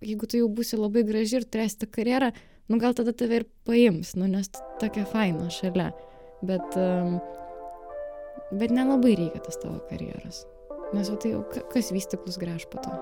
jeigu tu jau būsi labai graži ir turėsi tą karjerą, nu gal tada tave ir paims, nu nes tokia faina šalia. Bet nelabai reikia tas tavo karjeros. Nes tai jau kas vystiklus gręš po to.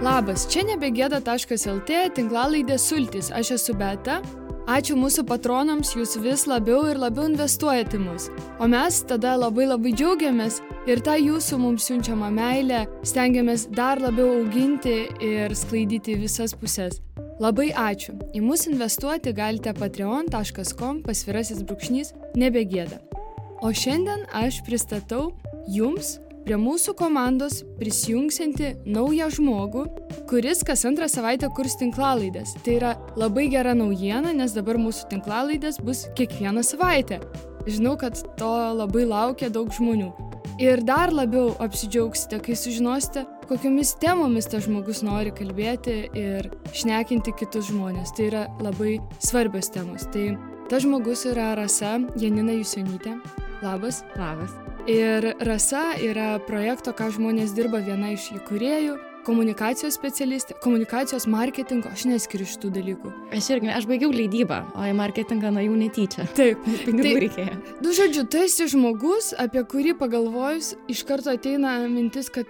Labas, čia nebegėda.lt tinklalaidė Sultys. Aš esu Beata. Ačiū mūsų patronams, jūs vis labiau ir labiau investuojate mus. O mes tada labai džiaugiamės ir tą jūsų mums siunčiamą meilę stengiamės dar labiau auginti ir sklaidyti visas puses. Labai ačiū. Į mus investuoti galite patreon.com/nebegėda. O šiandien aš pristatau jums prie mūsų komandos prisijungsianti naują žmogų, kuris kas antrą savaitę kurs tinklalaidės. Tai yra labai gera naujiena, nes dabar mūsų tinklalaidės bus kiekvieną savaitę. Žinau, kad to labai laukia daug žmonių. Ir dar labiau apsidžiaugsite, kai sužinosite, kokiomis temomis tas žmogus nori kalbėti ir šnekinti kitus žmonės. Tai yra labai svarbios temos. Tai tas žmogus yra Rasa Janina Jusionytė. Labas. Labas. Ir Rasa yra projekto Ką žmonės dirba viena iš įkūrėjų, komunikacijos specialistė, komunikacijos marketingo, aš neskiriu šitų dalykų. Aš baigiau leidybą, o į marketingą nuėjau netyčia. Taip. Pinigų reikėjo. Nu, žodžiu, tu esi žmogus, apie kurį pagalvojus, iš karto ateina mintis, kad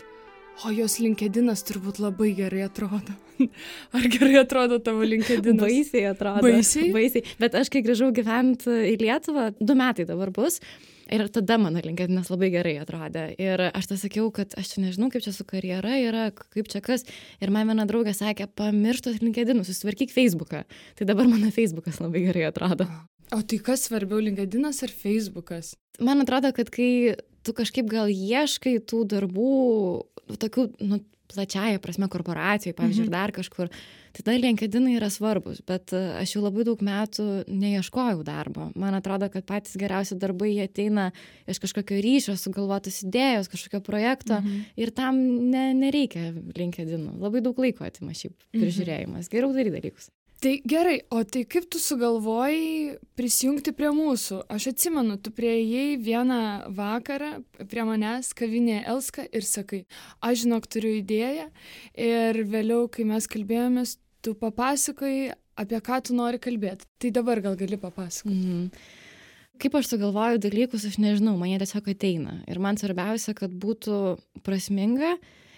jos LinkedInas turbūt labai gerai atrodo. Ar gerai atrodo tavo LinkedInas? Baisiai atrodo. Baisiai? Bet aš kai grįžau gyventi į Lietuvą, 2 metai dabar bus, ir tada mano LinkedInas labai gerai atrodė. Ir aš tą sakiau, kad aš čia nežinau, kaip čia su karjera yra, kaip čia kas. Ir man viena draugė sakė, pamirštos LinkedInus, susitvarkyk Facebooką. Tai dabar mano Facebookas labai gerai atrodo. O tai kas svarbiau, LinkedInas ar Facebookas? Man atrodo, kad kai tu kažkaip gal ieškai tų darbų, tokių, plačiaja prasme korporacijai, pavyzdžiui, ir dar kažkur, tada LinkedInai yra svarbus, bet aš jau labai daug metų neieškojau darbo. Man atrodo, kad patys geriausi darbai jie ateina iš kažkokio ryšio, sugalvotos idėjos, kažkokio projekto ir tam nereikia LinkedInų. Labai daug laiko atima šiaip prižiūrėjimas. Geriau daryti dalykus. Tai gerai, o tai kaip tu sugalvojai prisijungti prie mūsų? Aš atsimenu, tu prieėjai vieną vakarą prie manęs kavinėje Elska ir sakai, aš žinok, turiu idėją ir vėliau, kai mes kalbėjomės, tu papasakojai, apie ką tu nori kalbėti. Tai dabar gal gali papasakoti. Kaip aš sugalvoju dalykus, aš nežinau, man jie tiesiog ateina. Ir man svarbiausia, kad būtų prasminga.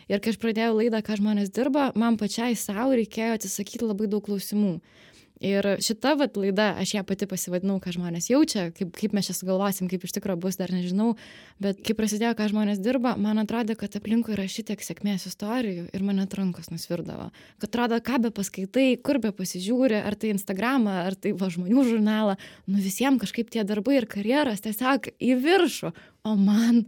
Ir kai aš pradėjau laidą, ką žmonės dirba, man pačiai savo reikėjo atsisakyti labai daug klausimų. Ir šita laida, aš ją pati pasivadinau, ką žmonės jaučia, kaip mes čia sugalvosim, kaip iš tikrųjų bus, dar nežinau. Bet kai prasidėjo, ką žmonės dirba, man atrodė, kad aplinkui yra šitiek sėkmės istorijų ir man net rankos nusvirdavo. Kad atrodo, ką be paskaitai, kur be pasižiūri, ar tai Instagramą, ar tai žmonių žurnalą, visiems kažkaip tie darbai ir karjeros tiesiog į viršų. O man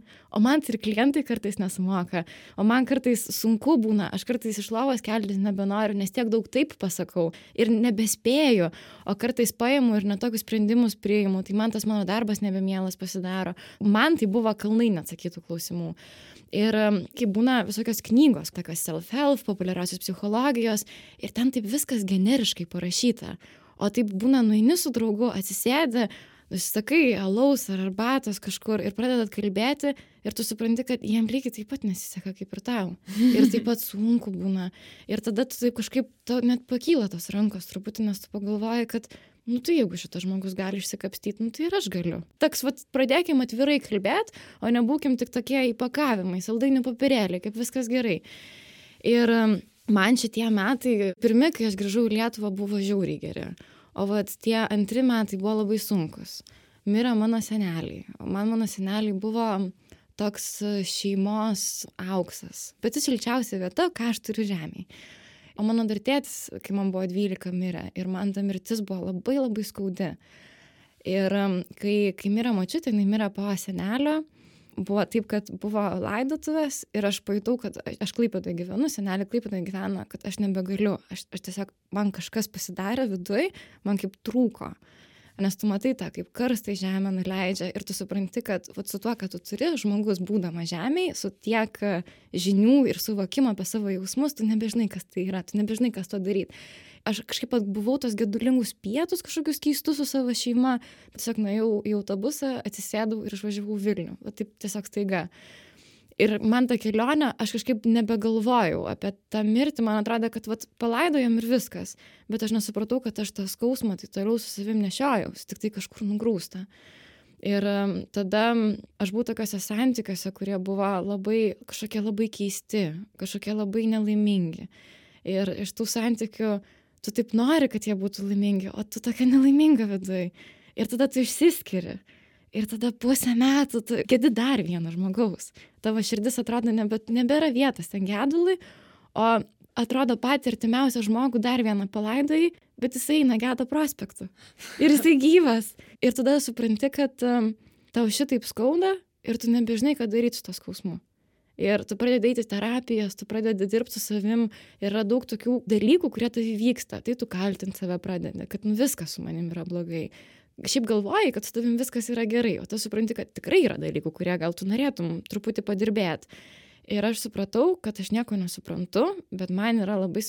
ir klientai kartais nesumoka, o man kartais sunku būna, aš kartais iš lovos keltis nebenoriu, nes tiek daug taip pasakau ir nebespėju, o kartais paimu ir netokius sprendimus priimu, tai man tas mano darbas nebemielas pasidaro. Man tai buvo kalnai neatsakytų klausimų. Ir kai būna visokios knygos, tokios self-help, populiariosios psichologijos, ir ten taip viskas generiškai parašyta, o taip būna nueini su draugu, atsisėdi, sakai alaus ar arbatos kažkur ir pradedat kalbėti ir tu supranti, kad jiem lygiai taip pat nesiseka kaip ir tau. Ir taip pat sunku būna. Ir tada tu taip kažkaip net pakyla tos rankos truputį, nes tu pagalvoji, kad tai jeigu šitas žmogus gali išsikapstyti, tai ir aš galiu. Toks, pradėkim atvirai kalbėti, o nebūkim tik tokie įpakavimai, saldainių popierėliai, kaip viskas gerai. Ir man šitie metai, pirmi, kai aš grįžau į Lietuvą, buvo žiauriai geri. O tie 2 metai buvo labai sunkus. Mirė mano seneliai. O mano seneliai buvo toks šeimos auksas. Pati šilčiausia vieta, ką aš turiu žemėje. O mano dar tėtis, kai man buvo 12, mirė. Ir man ta mirtis buvo labai skaudi. Ir kai mirė močiutė, jinai mirė po senelio. Buvo taip, kad buvo laidotuvės ir aš pajutau, kad aš Klaipėdoje gyvenu, senelė Klaipėdoje gyvena, kad aš nebegaliu. Aš tiesiog, man kažkas pasidarė viduj, man kaip trūko. Nes tu matai tą, kaip karstai žemę nuleidžia ir tu supranti, kad su tuo, kad tu turi, žmogus būdama žemėje, su tiek žinių ir suvokimo apie savo jausmus, tu nebežinai, kas tai yra, tu nebežinai, kas to daryti. Aš kažkaip buvau tos gedulingus pietus kažkokius keistus su savo šeima. Tiesiog nuėjau į autobusą, atsisėdau ir išvažiavau Vilnių. Va taip tiesiog staiga. Ir man ta kelionė, aš kažkaip nebegalvojau apie tą mirtį, man atrodo, kad vat, palaidojom ir viskas. Bet aš nesupratau, kad aš tą skausmą tai toliau su savim nešiojausi, tik tai kažkur nugrūsta. Ir tada aš buvau tokiuose santykiuose, kurie buvo kažkokie labai keisti, kažkokie labai nelaimingi. Ir iš tų santykių tu taip nori, kad jie būtų laimingi, o tu tokia nelaiminga viduj. Ir tada tu išsiskiri. Ir tada pusę metų tu gedi dar vieno žmogaus. Tavo širdis atrodo nebėra vietos ten gedului, o atrodo patį artimiausią žmogų dar vieną palaidojai, bet jisai eina Gedo prospektu. Ir jisai gyvas. Ir tada supranti, kad tau šitaip skauda ir tu nebežinai, ką daryti su to skausmu. Ir tu pradedi eiti terapijas, tu pradedi dirbti su savim, yra daug tokių dalykų, kurie tavy vyksta. Tai tu kaltinti save pradedi, kad viskas su manim yra blogai. Šiaip galvoji, kad su tavim viskas yra gerai, o tu supranti, kad tikrai yra dalykų, kurie gal tu norėtum truputį padirbėti. Ir aš supratau, kad aš nieko nesuprantu, bet man yra labai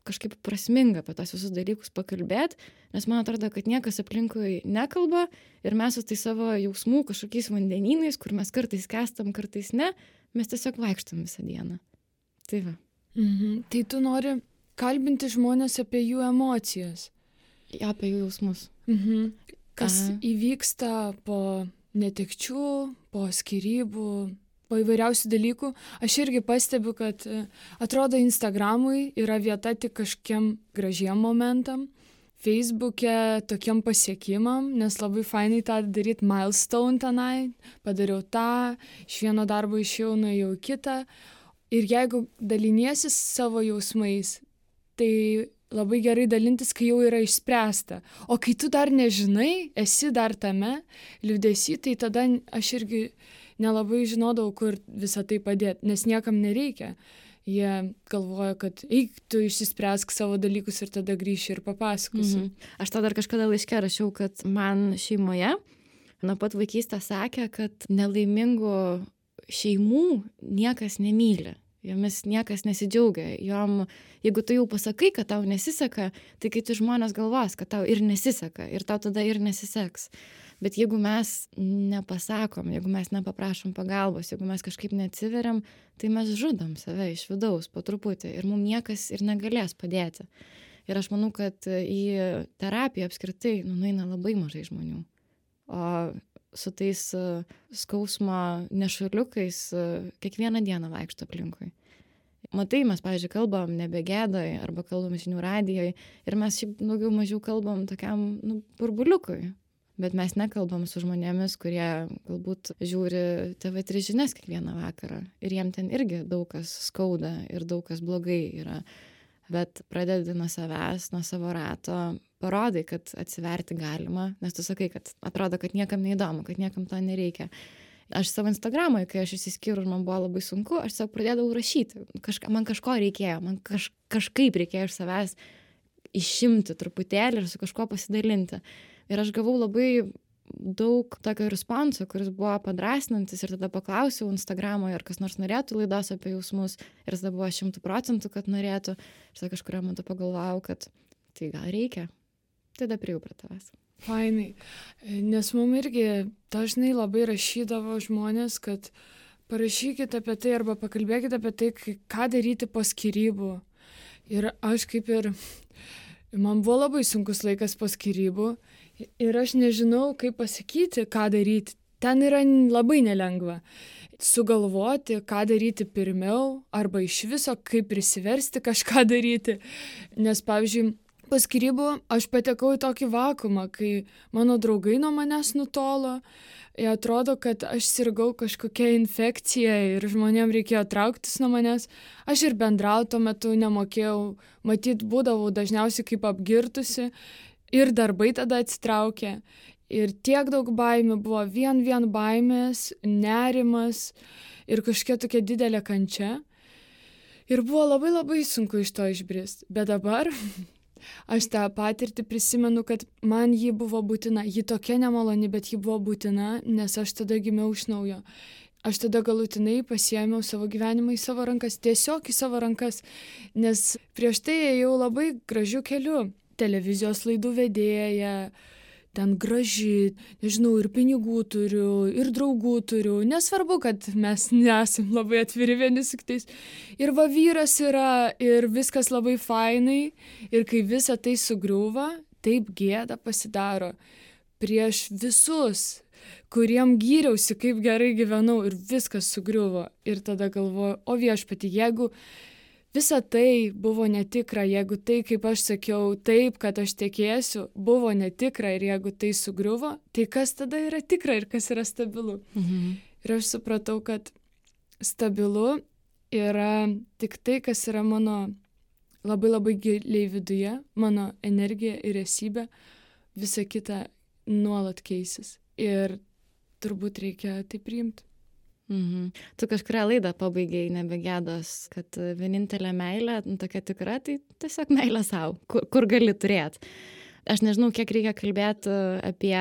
kažkaip prasminga apie tos visus dalykus pakalbėti, nes man atrodo, kad niekas aplinkui nekalba ir mes su tai savo jausmų kažkokiais vandenynais, kur mes kartais kestam, kartais ne, mes tiesiog vaikštam visą dieną. Tai va. Tai tu nori kalbinti žmonės apie jų emocijas. Ja, apie jų jausmus. Kas įvyksta po netekčių, po skyrybų, po įvairiausių dalykų. Aš irgi pastebiu, kad atrodo Instagramui yra vieta tik kažkiem gražiem momentam, Facebook'e tokiem pasiekimam, nes labai fainai tą daryti milestone tenai, padariau tą, iš vieno darbo išėjau, nuėjau į kitą. Ir jeigu daliniesi savo jausmais, tai labai gerai dalintis, kai jau yra išspręsta. O kai tu dar nežinai, esi dar tame liūdesy, tai tada aš irgi nelabai žinodavau, kur visą tai padėti, nes niekam nereikia. Jie galvoja, kad eik, tu išsispręsk savo dalykus ir tada grįši ir papasakosi. Aš tą dar kažkada laiške rašiau, kad man šeimoje nuo pat vaikystės sakė, kad nelaimingų šeimų niekas nemyli. Jomis niekas nesidžiaugia. Jeigu tu jau pasakai, kad tau nesiseka, tai kiti žmonės galvos, kad tau ir nesiseka ir tau tada ir nesiseks. Bet jeigu mes nepasakom, jeigu mes nepaprašom pagalbos, jeigu mes kažkaip neatsiveriam, tai mes žudom save iš vidaus po truputį ir mums niekas ir negalės padėti. Ir aš manau, kad į terapiją apskritai nueina labai mažai žmonių. O su tais skausmo nešuliukais kiekvieną dieną vaikšto aplinkui. Matai, mes, pavyzdžiui, kalbam nebe Gedoj arba kalbam žinių radijoj ir mes šiaip daugiau mažiau kalbam tokiam burbuliukui. Bet mes nekalbam su žmonėmis, kurie galbūt žiūri TV3 žinias kiekvieną vakarą. Ir jiem ten irgi daug kas skauda ir daug kas blogai yra. Bet pradedi nuo savęs, nuo savo rato, parodai, kad atsiverti galima, nes tu sakai, kad atrodo, kad niekam neįdomu, kad niekam to nereikia. Aš savo Instagramui, kai aš išsiskyriau ir man buvo labai sunku, aš tiesiog pradėdavau rašyti. Man kažko reikėjo, man kažkaip reikėjo iš savęs išimti truputėlį ir su kažkuo pasidalinti. Ir aš gavau labai daug tokio responso, kuris buvo padrasnantis ir tada paklausiau Instagramoje, ar kas nors norėtų laidos apie jausmus ir tada buvo 100%, kad norėtų. Ir tada kažkurio metu pagalvojau, kad tai gal reikia. Tada priėjau prie tavęs. Fainai, nes mums irgi dažnai labai rašydavo žmonės, kad parašykit apie tai arba pakalbėkit apie tai, ką daryti po skyrybų. Ir aš man buvo labai sunkus laikas po skyrybų ir aš nežinau, kaip pasakyti, ką daryti. Ten yra labai nelengva sugalvoti, ką daryti pirmiau arba iš viso, kaip prisiversti kažką daryti. Nes, pavyzdžiui, po skyrybų aš patekau į tokį vakuumą, kai mano draugai nuo manęs nutolo. Jie atrodo, kad aš sirgau kažkokia infekcija ir žmonėm reikėjo trauktis nuo manęs. Aš ir bendrauti tuo metu nemokėjau, matyt, būdavau dažniausiai kaip apgirtusi ir darbai tada atsitraukė. Ir tiek daug baimių buvo, vien baimės, nerimas ir kažkokia tokia didelė kančia. Ir buvo labai sunku iš to išbrist. Bet dabar aš tą patirtį prisimenu, kad man ji buvo būtina. Ji tokia nemaloni, bet ji buvo būtina, nes aš tada gimiau iš naujo. aš tada galutinai pasiėmiau savo gyvenimą į savo rankas, tiesiog į savo rankas, nes prieš tai ėjau labai gražiu keliu. Televizijos laidų vedėja, ten graži, nežinau, ir pinigų turiu, ir draugų turiu. Nesvarbu, kad mes nesam labai atviri vieni su kitais. Ir va vyras yra, ir viskas labai fainai. Ir kai visa tai sugriūva, taip gėda pasidaro prieš visus, kuriem gyriausi, kaip gerai gyvenau, ir viskas sugriuvo. Ir tada galvoju, o viešpatie, jeigu visa tai buvo netikra, jeigu tai, kaip aš sakiau, taip, kad aš tekėsiu, buvo netikra ir jeigu tai sugriuvo, tai kas tada yra tikra ir kas yra stabilu? Ir aš supratau, kad stabilu yra tik tai, kas yra mano labai labai giliai viduje, mano energija ir esybė, visa kita nuolat keisis. Ir turbūt reikia tai priimti. Tu kažkurią laidą pabaigiai nebegėdos, kad vienintelė meilė, tokia tikra, tai tiesiog meilė savo, kur gali turėti. Aš nežinau, kiek reikia kalbėti apie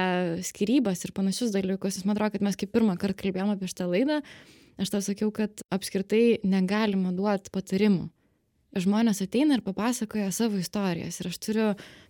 skyrybas ir panašius dalykus. Man atrodo, kad mes kaip pirmą kartą kalbėjome apie šitą laidą, aš tau sakiau, kad apskritai negalima duoti patarimų. Žmonės ateina ir papasakoja savo istorijas. Ir aš turiu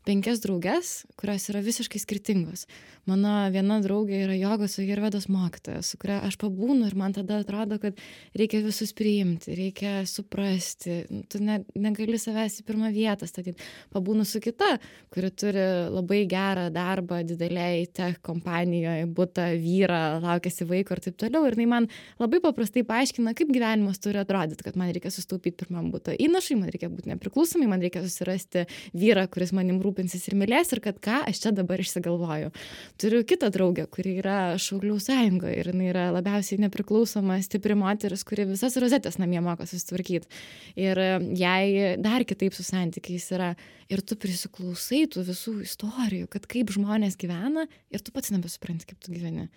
5 drauges, kurios yra visiškai skirtingos. Mano viena draugė yra jogos ajurvedos mokytoja, su kuria aš pabūnu ir man tada atrodo, kad reikia visus priimti, reikia suprasti. Tu negali savęs į pirmą vietą statyti. Pabūnu su kita, kuri turi labai gerą darbą didelėj tech kompanijoje, butą, vyrą, laukiasi vaiko ir taip toliau. Ir jinai man labai paprastai paaiškina, kaip gyvenimas turi atrodyti, kad man reikia sustaupyti pirmam butą įnašui, man reikia būti nepriklausomai, man reikia susirasti vyrą, kuris manim rūpinsis ir mylės, ir kad ką aš čia dabar išsigalvoju. Turiu kitą draugę, kuri yra Šaulių sąjungoje ir jinai yra labiausiai nepriklausoma, stipri moteris, kuri visas rozetės namie moka susitvarkyti. Ir jai dar kitaip su santykiais yra. Ir tu prisiklausai tų visų istorijų, kad kaip žmonės gyvena ir tu pats nebesupranti, kaip tu gyveni.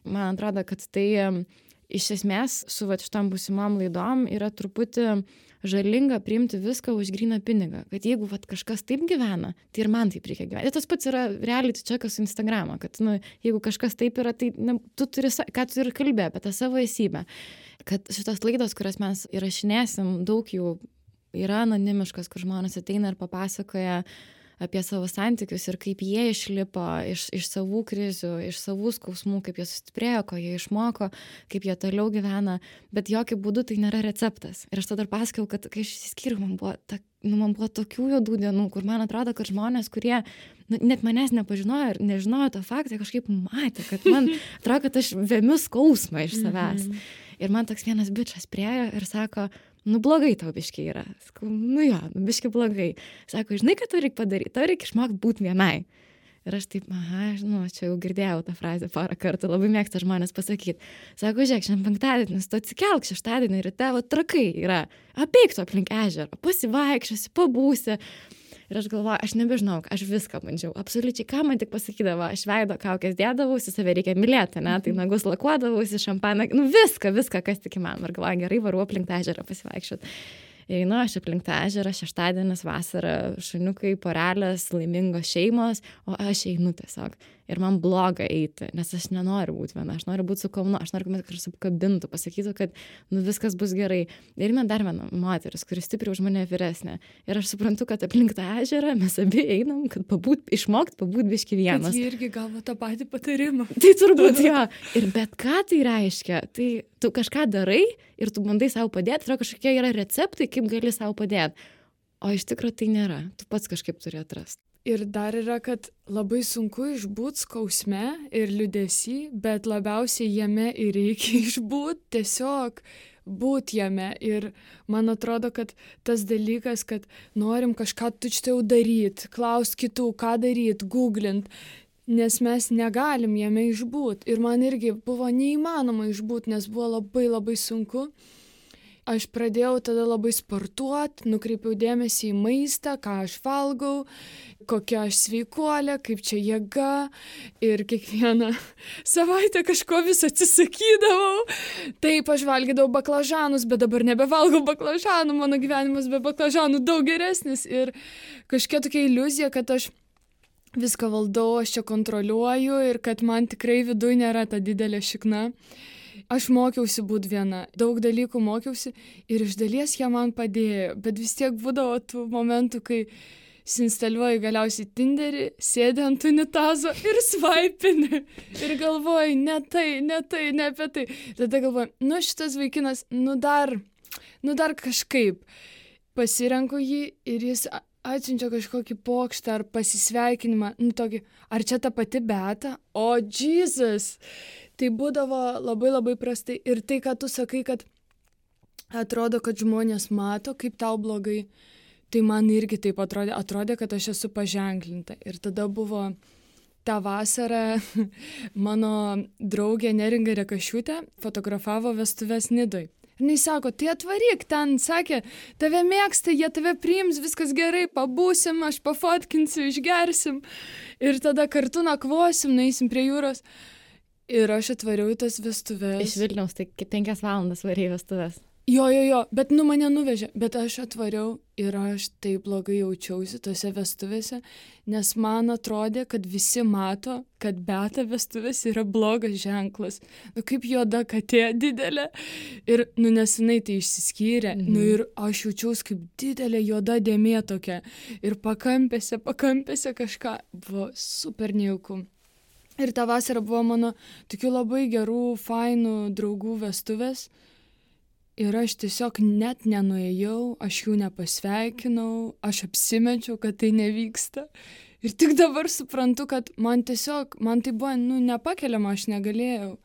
Man atrodo, kad tai iš esmės su šitom būsimom laidom yra truputį žalinga priimti viską už gryną pinigą. Kad jeigu kažkas taip gyvena, tai ir man taip reikia gyventi. Tas pats yra reality checkas su Instagramo, kad jeigu kažkas taip yra, tai tu turi, ką tu ir kalbė apie tą savo esybę. Kad šitos laidos, kurias mes įrašinėsim, daug jų yra anonimiškas, kur žmonės ateina ir papasakoja apie savo santykius ir kaip jie išlipo iš savų krizių, iš savų skausmų, kaip jie sustiprėjo, ko jie išmoko, kaip jie toliau gyvena, bet jokių būdų tai nėra receptas. Ir aš tada pasakojau, kad kai aš išsiskyriau, man buvo tokių juodų dienų, kur man atrodo, kad žmonės, kurie net manęs nepažinojo ir nežinojo to faktą, kažkaip matė, kad man atrodo, kad aš vemiu skausmą iš savęs. Ir man toks vienas bičas priėjo ir sako, blogai tau biškiai yra. Sakau, biškiai blogai. Sako, žinai, ką tau reikia padaryti? Tau reikia išmokti būti vienai. Ir aš taip, čia jau girdėjau tą frazę porą kartų, labai mėgsta žmonės pasakyti. Sako, žiūrėk, šiandien penktadienis, tu atsikelk šeštadienį ir tavo trakai yra. Apeik tu aplink ežerą, pasivaikščiosi, pabūsi. Ir aš galvoju, aš nebežinau, aš viską bandžiau. Absoliučiai, ką man tik pasakydavo, aš veido kaukės dėdavausi, save reikia mylėti, tai nagus lakuodavausi, šampaną, viską, kas tik įmanoma. Ir galvoju, gerai, varu aplink tą ežerą pasivaikščioti. Einu aš aplink tą ežerą, šeštadienis, vasara, šuniukai, porelės, laimingos šeimos, o aš einu tiesiog. Ir man bloga eiti, nes aš nenoriu būti viena, aš noriu būti su kaunu, aš noriu, kad kažkas apkabintų, pasakytų, kad viskas bus gerai. Ir man dar viena moteris, kuri stipriai už mane vyresnė. Ir aš suprantu, kad aplink tą ežerą mes abi einam, kad išmokti pabūt biški vienas. Kad jie irgi gavo tą patį patarimą. Tai turbūt jo. Ir bet ką tai reiškia, tai tu kažką darai ir tu bandai savo padėti, tai kažkokie yra receptai, kaip gali savo padėti. O iš tikrųjų tai nėra, tu pats kažkaip turi atrasti. Ir dar yra, kad labai sunku išbūt skausme ir liūdesy, bet labiausiai jame ir reikia išbūt, tiesiog būti jame. Ir man atrodo, kad tas dalykas, kad norim kažką tučtai daryti, klausti kitų, ką daryti, googlint, nes mes negalim jame išbūt. Ir man irgi buvo neįmanoma išbūt, nes buvo labai labai sunku. Aš pradėjau tada labai sportuoti, nukreipiau dėmesį į maistą, ką aš valgau, kokia aš sveikuolė, kaip čia jėga. Ir kiekvieną savaitę kažko vis atsisakydavau. Taip, aš valgydavau baklažanus, bet dabar nebevalgau baklažanų, mano gyvenimas be baklažanų daug geresnis. Ir kažkokia tokia iliuzija, kad aš viską valdau, aš čia kontroliuoju ir kad man tikrai viduj nėra ta didelė šikna. Aš mokiausi būt viena, daug dalykų mokiausi ir iš dalies jie man padėjo, bet vis tiek būdavo tų momentų, kai instaliuoji galiausiai Tinderį, sėdi ant unitazo ir svaipini ir galvoji, ne apie tai. Tada galvoji, šitas vaikinas, dar kažkaip. Pasirenku jį ir jis atsiunčia kažkokį pokštą ar pasisveikinimą, tokį, ar čia ta pati Beata? O, Jesus! Tai būdavo labai labai prastai. Ir tai, ką tu sakai, kad atrodo, kad žmonės mato, kaip tau blogai, tai man irgi taip atrodė, kad aš esu paženklinta. Ir tada buvo tą vasarą mano draugė Neringa Rekašiūtė fotografavo vestuves Nidoj. Ir jis sako, tai atvaryk ten, sakė, tave mėgsta, jie tave priims, viskas gerai, pabūsim, aš pafotkinsiu, išgersim ir tada kartu nakvosim, nueisim prie jūros. Ir aš atvariau į tas vestuves. Iš Vilniaus, tai 5 valandas varėjai vestuves. Jo, bet mane nuvežė, bet aš atvariau ir aš taip blogai jaučiausi tose vestuvėse, nes man atrodė, kad visi mato, kad Beata vestuvės yra blogas ženklas. Kaip juoda katė didelė. Ir, nesenai tai išsiskyrė. Ir aš jaučiausi kaip didelė juoda dėmė tokia. Ir pakampėse kažką. Buvo super nejauku. Ir tą vasarą buvo mano tokių labai gerų, fainų draugų vestuvės. Ir aš tiesiog net nenuėjau, aš jų nepasveikinau, aš apsimečiau, kad tai nevyksta. Ir tik dabar suprantu, kad man tai buvo, nepakeliama, aš negalėjau.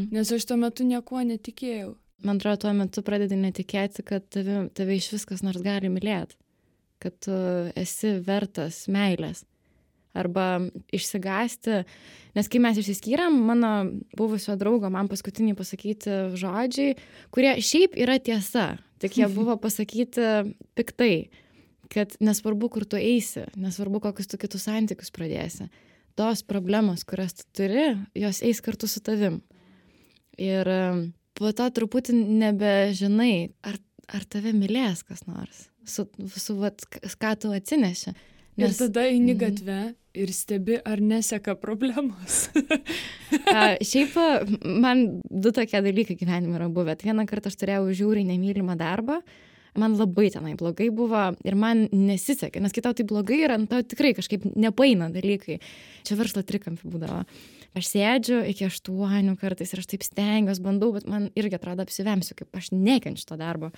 Nes aš tuo metu niekuo netikėjau. Man atrodo, tuo metu pradedi netikėti, kad tave iš viskas nors gali mylėti. Kad tu esi vertas meilės. Arba išsigąsti, nes kai mes išsiskyrėm, mano buvusio draugo man paskutiniai pasakyti žodžiai, kurie šiaip yra tiesa, tik jie buvo pasakyti piktai, kad nesvarbu, kur tu eisi, nesvarbu, kokius tu kitus santykius pradėsi, tos problemos, kurias tu turi, jos eis kartu su tavim. Ir po to truputį nebežinai, ar tave mylės kas nors, ką tu atsineši. Ir tada eini gatve ir stebi, ar neseka problemos. Šiaip man 2 tokie dalykai gyvenime yra buvę. Vieną kartą aš turėjau žiauriai nemylimą darbą, man labai tenai blogai buvo ir man nesisekė, nes kai tau tai blogai yra, tau tikrai kažkaip nepaeina dalykai. Čia verslo trikampį būdavo. Aš sėdžiu iki 8 kartais ir aš taip stengiuosi, bandau, bet man irgi atrodo apsivemsiu, kaip aš nekenčiu to darbo.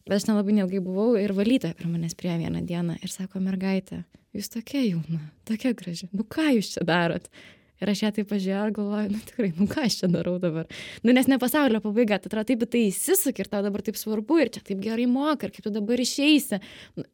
Bet aš nelabai neilgai buvau ir valytoja prie manęs priėjo vieną dieną ir sako, mergaitė, jūs tokia jauna, tokia graži, ką jūs čia darot? Ir aš ją taip pažiūrėjau ir galvoju, tikrai, ką aš čia darau dabar? Nes ne pasaulio pabaiga, tai atrodo taip, tai įsisuk ir tau dabar taip svarbu ir čia taip gerai moka ir kaip tu dabar išeisi.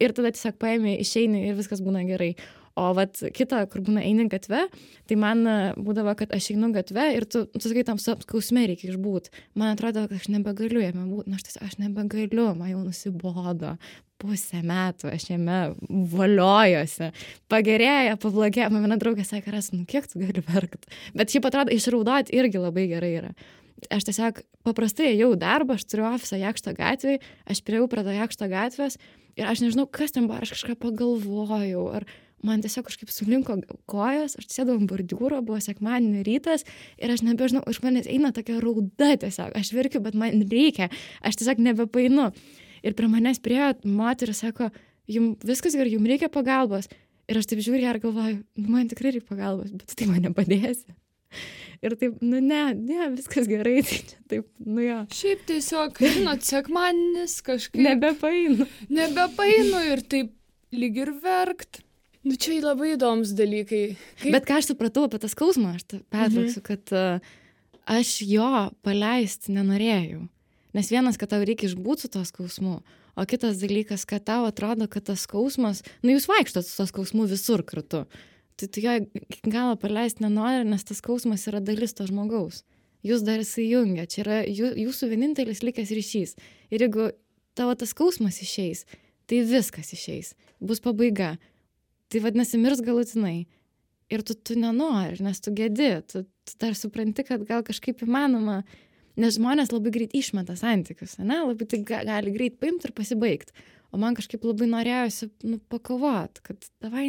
Ir tada tiesiog paėmė, išeini ir viskas būna gerai. O kita, kur būna eini gatve, tai man būdavo, kad aš einu gatve ir tu sakai, tam skausme reikia išbūt. Man atrodo, kad aš nebegaliu jame būti, aš nebegaliu, man jau nusibodo. 5 metų aš jame voliojosi. Pagerėja, pablogėja. Man viena draugė sakė, kiek tu gali verkt. Bet šiaip atrodo, išraudoti irgi labai gerai yra. Aš tiesiog paprastai ėjau darbą, aš turiu ofisą Jakšto gatvėje, aš priėjau prie to Jakšto gatvės ir aš nežinau, kas ten buvo, aš kažką pagalvojau, ar man tiesiog kažkaip sulinko kojos, aš sėdau ant bordiūro, buvo sekmadienio rytas ir aš nebežinau, iš manęs eina tokia rauda tiesiog, aš verkiu, bet man reikia, aš tiesiog nebepainu. Ir prie manęs priėjo moteris, sako, jums viskas gerai, jums reikia pagalbos. Ir aš taip žiūriu ir galvoju, man tikrai reikia pagalbos, bet tu tai man nepadėsi. Ir taip, ne, viskas gerai, tai čia taip, jo. Šiaip tiesiog, sekmadienis kažkaip. Nebepainu ir taip lyg ir verkt. Čia labai įdomus dalykai. Bet ką aš supratau apie tą skausmą, aš pertrauksiu, kad aš jo paleisti nenorėjau. Nes vienas, kad tau reikia išbūti su to skausmu, o kitas dalykas, kad tau atrodo, kad tas skausmas, jūs vaikštot su to skausmu visur kartu. Tai tu jo iki galo paleisti nenori, nes tas skausmas yra dalis to žmogaus. Jūs dar įsijungia, čia yra jūsų vienintelis likęs ryšys. Ir jeigu tavo tas skausmas išeis, tai viskas išeis, bus pabaiga. Tai vadinasi, mirs galutinai. Ir tu nenori, nes tu gedi, tu dar supranti, kad gal kažkaip įmanoma, nes žmonės labai greit išmeta santykius, ne? Labai tai gali greit paimti ir pasibaigti. O man kažkaip labai norėjosi pakovoti, kad davai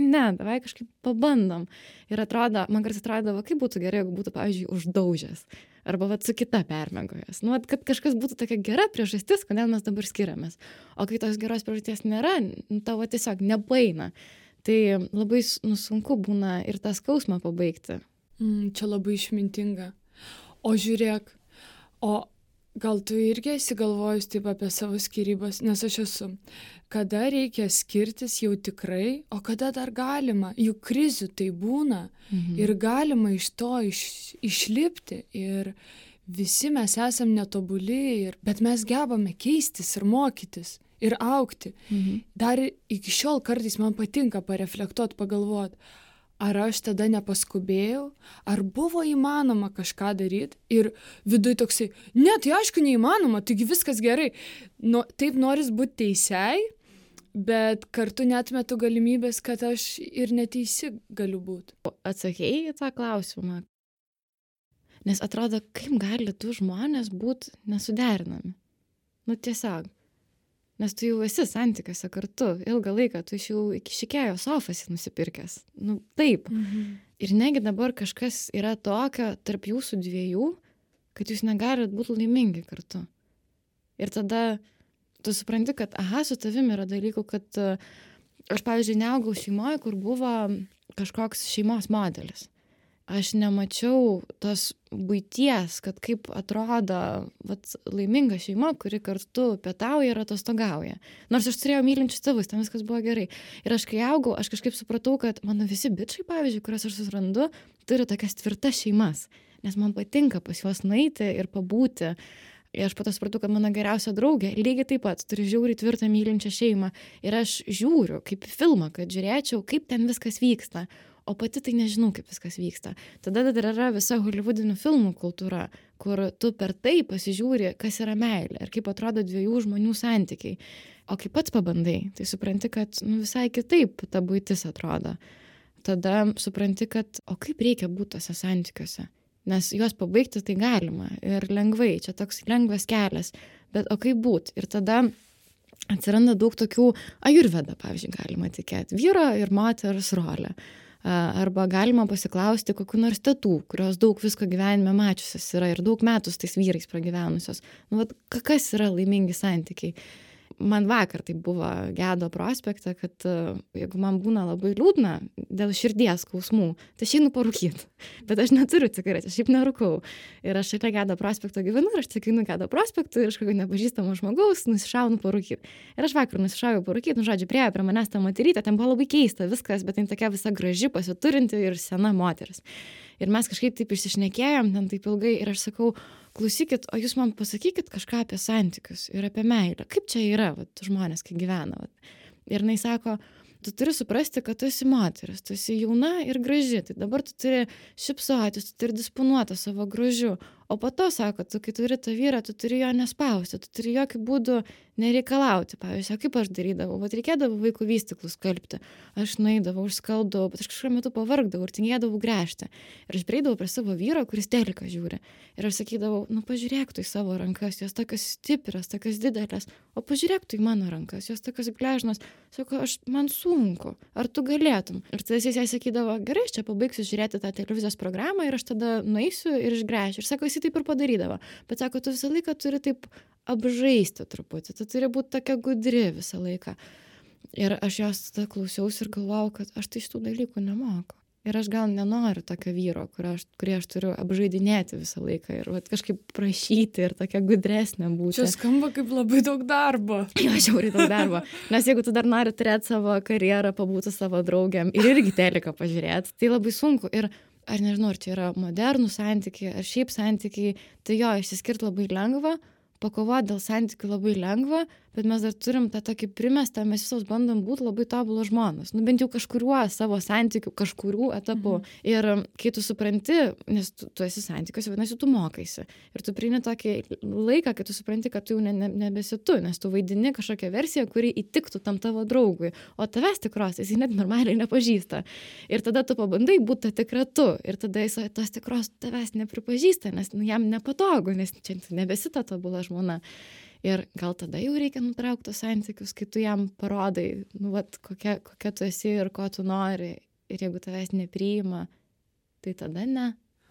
kažkaip pabandom. Ir man kartais atrodo, kaip būtų gerai, jeigu būtų, pavyzdžiui, uždaužęs. arba vat su kita permiegojęs. Nu, vat, kad kažkas būtų tokia gera priežastis, kodėl mes dabar skiriamės. O kai tos geros priežasties nėra, tavo tiesiog nepaeina. Tai labai sunku būna ir tą skausmą pabaigti. Čia labai išmintinga. O žiūrėk, gal tu irgi esi galvojus taip apie savo skyrybas, nes aš esu. Kada reikia skirtis jau tikrai, o kada dar galima, juk krizių tai būna ir galima iš to išlipti ir visi mes esam netobuli, bet mes gebame keistis ir mokytis ir augti. Dar iki šiol kartais man patinka pareflektuoti, pagalvoti, ar aš tada nepaskubėjau, ar buvo įmanoma kažką daryti ir viduj toksai, ne, tai aišku neįmanoma, taigi viskas gerai. Taip noris būti teisiai, bet kartu neatmetu galimybės, kad aš ir neteisi galiu būti. Atsakėjai į tą klausimą. Nes atrodo, kaip gali du žmonės būti nesuderinami. Tiesiog. Nes tu jau esi santykiuose kartu ilgą laiką, tu jau iki šikėjo sofas nusipirkęs. Taip. Ir negi dabar kažkas yra tokio tarp jūsų dviejų, kad jūs negalit būti laimingi kartu. Ir tada tu supranti, kad su tavim yra dalykų, kad aš, pavyzdžiui, neaugau šeimoje, kur buvo kažkoks šeimos modelis. Aš nemačiau tos buities, kad kaip atrodo laiminga šeima, kuri kartu pietauja ir atostogauja. Nors aš turėjau mylinčius tėvus, ten viskas buvo gerai. Ir aš kai augau, aš kažkaip supratau, kad mano visi bičai, pavyzdžiui, kuriuos aš susirandu, turi tokias tvirtas šeimas. Nes man patinka pas juos nueiti ir pabūti. Ir aš po to supratau, kad mano geriausia draugė lygiai taip pat turi žiauriai tvirtą mylinčią šeimą. Ir aš žiūriu kaip filmą, kad žiūrėčiau, kaip ten viskas vyksta. O pati tai nežinau, kaip viskas vyksta. Tada dar yra visa holivudinių filmų kultūra, kur tu per tai pasižiūri, kas yra meilė ir kaip atrodo dviejų žmonių santykiai. O kai pats pabandai, tai supranti, kad visai kitaip ta buitis atrodo. Tada supranti, kad kaip reikia būti tose santykiuose. Nes juos pabaigti tai galima ir lengvai, čia toks lengvas kelias. Bet kaip būti? Ir tada atsiranda daug tokių, ajurveda, pavyzdžiui, galima tikėti, vyro ir moters rolė. Arba galima pasiklausti kokių nors tetų, kurios daug visko gyvenime mačiusios yra ir daug metų su tais vyrais pragyvenusios. Kas yra laimingi santykiai? Man vakar tai buvo Gedo prospekte, kad jeigu man būna labai liūdna dėl širdies skausmų, tai aš einu parūkyti. Bet aš neturiu cigaretės, šiaip nerūkau. Ir aš šalia Gedo prospekto gyvenu ir aš tik einu Gedo prospektu ir aš kokio nepažįstamo žmogaus nusišaunu parūkyti. Ir aš vakar nusišaujau parūkyti, žodžiu, priėjo prie manęs tą moterytę, ten buvo labai keista viskas, bet ten tokia visa graži, pasiturinti ir sena moteris. Ir mes kažkaip taip išsišnekėjom ten taip ilgai ir aš sakau, klausykit, o jūs man pasakykit kažką apie santykius ir apie meilę. Kaip čia yra, žmonės, kai gyvena. Ir jinai sako, tu turi suprasti, kad tu esi moteris, tu esi jauna ir graži, tai dabar tu turi šypsotis, tu turi disponuoti savo grožiu. O po to, sako, tu kai turi tą vyrą, tu turi jo nespausti, tu turi jokių būdų nereikalauti. Pavyzdžiui, kaip aš darydavau, reikėdavo vaikų vystyklus skalbti. Aš nueidavau, užskalbdavau, bet aš kažkuo metu pavargdavau ir tingėdavau gręžti. Ir aš prieidavau prie savo vyro, kuris teliką žiūri. Ir aš sakydavau, pažiūrėk tu į savo rankas, jos tokios stiprios, tokios didelės, o pažiūrėk tu į mano rankas, jos tokios gležnos. Sako, man sunku, ar tu galėtum? Ir tada jis jai sakydavo, gerai, aš čia pabaigsiu žiūrėti tą televizijos programą ir aš tada nueisiu ir išgręšiu. Ir sako, jis taip ir padarydavo. Bet sako, tu visą laiką turi taip apžaisti truputį, tu turi būti tokia gudri visą laiką. Ir aš jos tada klausiausi ir galvojau, kad aš tai šitų dalykų nemoku. Ir aš gal nenoriu tokio vyro, kurį aš turiu apžaidinėti visą laiką ir kažkaip prašyti ir tokia gudresnė būti. Čia skamba kaip labai daug darbo. Jo, žiauriai daug darbo. Nes jeigu tu dar nori turėti savo karjerą, pabūti savo draugiam ir irgi teliką pažiūrėti, tai labai sunku. Ir aš nežinau, ar čia yra modernų santykiai, ar šiaip santykiai, tai jo, išsiskirti labai lengva, pakovoti dėl santykių labai lengva, bet mes dar turim tą tokį primestą, mes visos bandom būti labai tobulos žmonos. Bent jau kažkuriuo savo santykių, kažkurių etapų. Ir kai tu supranti, nes tu esi santykiuose, vadinasi, tu mokaisi. Ir tu priimi tokį laiką, kai tu supranti, kad tu jau nebesi tu, nes tu vaidini kažkokią versiją, kuri įtiktų tam tavo draugui. O tavęs tikros, jis net normaliai nepažįsta. Ir tada tu pabandai būti tikra tu. Ir tada jis tos tikros tavęs nepripažįsta, nes jam nepatogu, nes čia nebesi ta tobula žmona. Ir gal tada jau reikia nutraukti tos santykius, kai tu jam parodai, kokia tu esi ir ko tu nori. Ir jeigu tavęs nepriima, tai tada ne.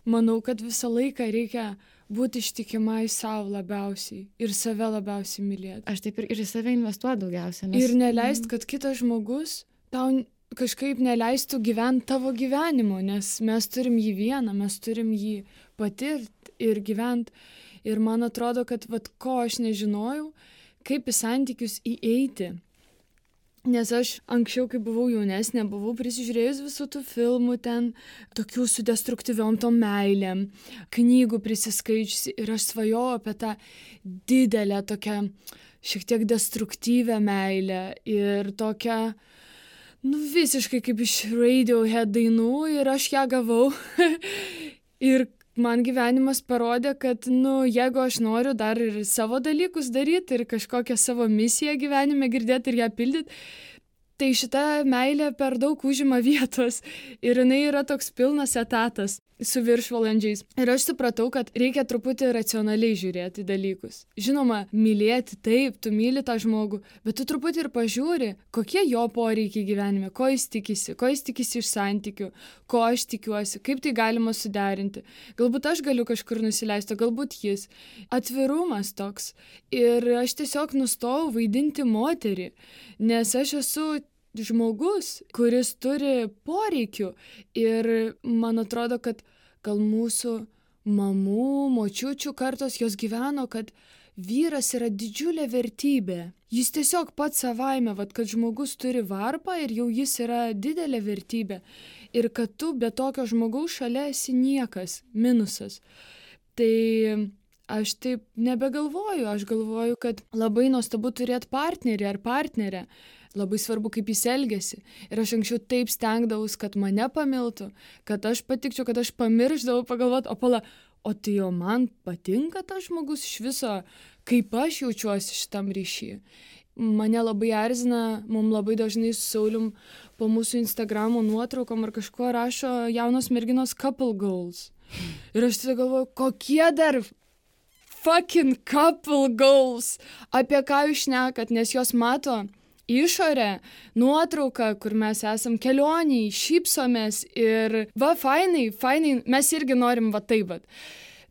manau, kad visą laiką reikia būti ištikimai savo labiausiai ir save labiausiai mylėti. Aš taip ir į save investuoju daugiausia. Ir neleist, kad kitas žmogus tau kažkaip neleistų gyventi tavo gyvenimo, nes mes turim jį vieną, mes turim jį patirti ir gyventi. Ir man atrodo, kad ko aš nežinojau, kaip į santykius įeiti. Nes aš anksčiau, kai buvau jaunesnė, buvau prisižiūrėjus visų tų filmų ten, tokių su destruktyviom tom meilėm, knygų prisiskaičiusi ir aš svajojau apie tą didelę, tokią šiek tiek destruktyvę meilę ir tokią, visiškai kaip iš Radiohead dainų ir aš ją gavau. Ir man gyvenimas parodė, kad, jeigu aš noriu dar ir savo dalykus daryti ir kažkokią savo misiją gyvenime girdėti ir ją pildyti, tai šita meilė per daug užima vietos ir jinai yra toks pilnas etatas su viršvalandžiais. Ir aš supratau, kad reikia truputį racionaliai žiūrėti dalykus. Žinoma, mylėti taip, tu myli tą žmogų, bet tu truputį ir pažiūri, kokie jo poreikiai gyvenime, ko jis tikisi iš santykių, ko aš tikiuosi, kaip tai galima suderinti. Galbūt aš galiu kažkur nusileisti, galbūt jis. Atvirumas toks. Ir aš tiesiog nustojau vaidinti moterį, nes aš esu žmogus, kuris turi poreikių ir man atrodo, kad gal mūsų mamų, močiučių kartos jos gyveno, kad vyras yra didžiulė vertybė. Jis tiesiog pats savaime, kad žmogus turi varpą ir jau jis yra didelė vertybė. Ir kad tu be tokio žmogaus šalia esi niekas, minusas. Tai aš taip nebegalvoju, aš galvoju, kad labai nuostabu turėti partnerį ar partnerę. Labai svarbu, kaip jis elgiasi. Ir aš anksčiau taip stengdavus, kad mane pamiltų, kad aš patikčiau, kad aš pamiršdavau pagalvoti, o tai jau man patinka tas žmogus iš viso, kaip aš jaučiuosi šitam ryšy. Mane labai erzina, mums labai dažnai su Saulium po mūsų Instagramo nuotraukom ar kažko rašo jaunos merginos couple goals. Ir aš tada galvoju, kokie dar fucking couple goals, apie ką jūs šnekat, nes jos mato išorę, nuotrauką, kur mes esam kelioniai, šypsomės ir fainai, mes irgi norim taip.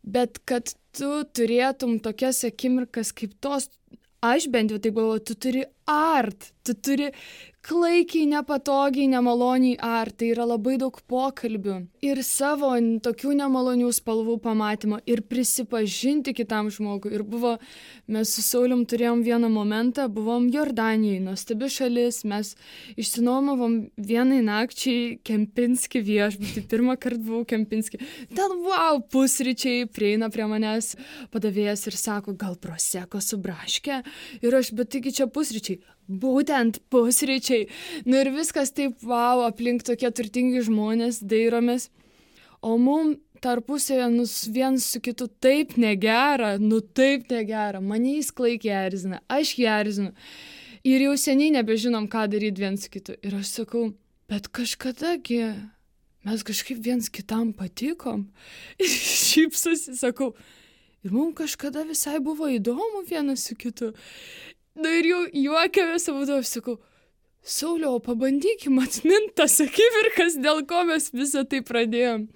Bet kad tu turėtum tokias akimirkas kaip tos, aš bent jau taip galvoju, tu turi tu turi klaikiai, nepatogiai, nemaloniai tai yra labai daug pokalbių ir savo tokių nemalonių spalvų pamatymo ir prisipažinti kitam žmogui. Ir mes su Saulium turėjom vieną momentą, buvom Jordanijai, nuostabi šalis, mes išsinuomavom vienai nakčiai Kempinski viešbutį, pirmą kartą buvau Kempinski. Ten pusryčiai, prieina prie manęs padavėjas ir sako, gal proseko su braške? Ir aš, bet taigi čia pusryčiai. Būtent pusryčiai. Ir viskas taip, aplink tokie turtingi žmonės, dairomės. O mum tarpusėje viens su kitu taip negera, taip negera. Mane jis klaikiai erzina, aš jį erzinu. Ir jau seniai nebežinom, ką daryti viens su kitu. Ir aš sakau, bet kažkadagi mes kažkaip viens kitam patikom. Ir šypsosi, sakau, ir mums kažkada visai buvo įdomu vienas su kitu. Ir jau juokiamės, aš sakau, Sauliau, pabandykim atminti tas akimirkas, dėl ko mes visą tai pradėjom.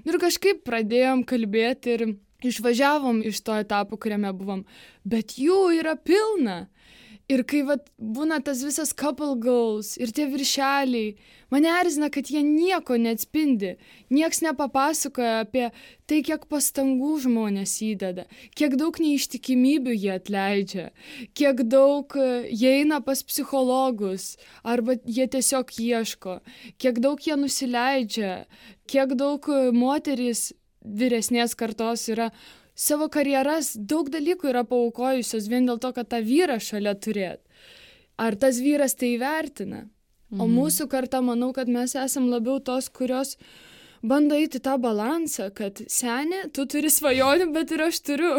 Ir kažkaip pradėjom kalbėti ir išvažiavom iš to etapo, kuriame buvom. Bet jų yra pilna. Ir kai būna tas visas couple goals ir tie viršeliai, mane erzina, kad jie nieko neatspindi. Nieks nepapasakoja apie tai, kiek pastangų žmonės įdeda, kiek daug neištikimybių jie atleidžia, kiek daug jie eina pas psichologus, arba jie tiesiog ieško, kiek daug jie nusileidžia, kiek daug moterys vyresnės kartos yra savo karjeras, daug dalykų yra paaukojusios vien dėl to, kad tą vyrą šalia turėt. Ar tas vyras tai įvertina? O mūsų karta, manau, kad mes esam labiau tos, kurios bando eiti tą balansą, kad seni, tu turi svajonių, bet ir aš turiu.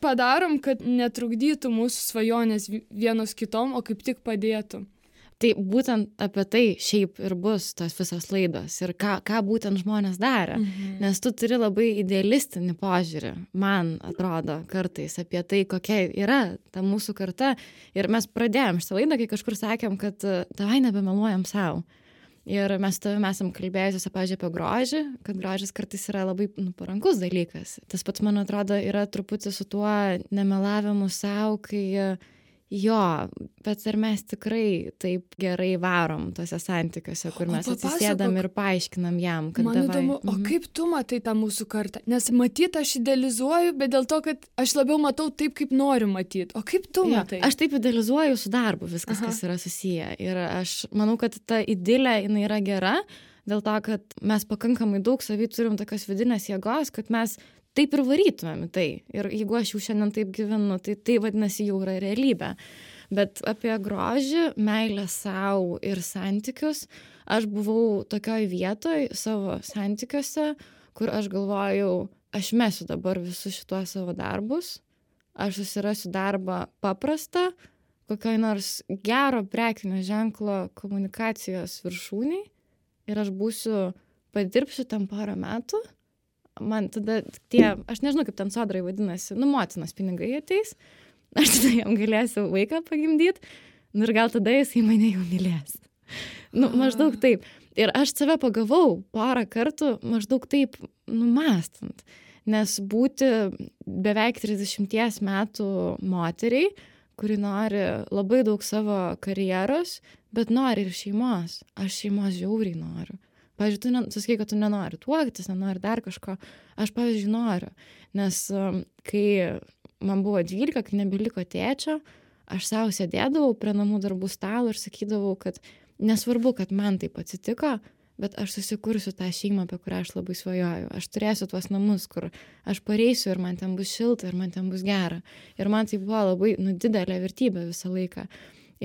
Padarom, kad netrukdytų mūsų svajonės vienos kitom, o kaip tik padėtų. Tai būtent apie tai šiaip ir bus tos visos laidos ir ką būtent žmonės darė. Nes tu turi labai idealistinį požiūrį, man atrodo, kartais apie tai, kokia yra ta mūsų karta. Ir mes pradėjom šitą laidą, kai kažkur sakėm, kad davai nebemeluojam savo. Ir mes su tavimi esam kalbėjusios, pavyzdžiui, apie grožį, kad grožis kartais yra labai parankus dalykas. Tas pats, man atrodo, yra truputį su tuo nemelavimu savo, kai bet ar mes tikrai taip gerai varom tuose santykiuose, kur mes atsisėdam ir paaiškinam jam, kad man įdomu, o kaip tu matai tą mūsų kartą? Nes matyt, aš idealizuoju, bet dėl to, kad aš labiau matau taip, kaip noriu matyti. O kaip tu matai? Aš taip idealizuoju su darbu viskas, kas yra susiję. Ir aš manau, kad ta idilė, jinai yra gera, dėl to, kad mes pakankamai daug savy turim tokios vidinės jėgos, kad mes taip ir varytumėm į tai. Ir jeigu aš jau šiandien taip gyvenu, tai vadinasi jau yra realybė. Bet apie grožį, meilę savo ir santykius, aš buvau tokioj vietoj savo santykiuose, kur aš galvojau, aš mesiu dabar visus šituos savo darbus, aš susirasiu darbą paprastą, kokioj nors gero prekinio ženklo komunikacijos viršūniai ir aš padirbsiu tam porą metų. Man tada aš nežinau, kaip ten sodrai vadinasi, motinos pinigai ateis, aš tada jam galėsiu vaiką pagimdyti, ir gal tada jisai mane jau mylės. Maždaug taip. Ir aš save pagavau porą kartų maždaug taip mąstant, nes būti beveik 30 metų moteriai, kuri nori labai daug savo karjeros, bet nori ir šeimos. Aš šeimos žiauriai noriu. Pavyzdžiui, tu sakai, kad tu nenori tuoktis, nenori dar kažko. Aš, pavyzdžiui, noriu. Nes kai man buvo 12, kai nebeliko tėčio, aš savo sėdėdavau prie namų darbų stalo ir sakydavau, kad nesvarbu, kad man taip atsitiko, bet aš susikursiu tą šeimą, apie kurią aš labai svajoju. Aš turėsiu tuos namus, kur aš pareisiu ir man ten bus šilta ir man ten bus gera. Ir man tai buvo labai didelė vertybė visą laiką.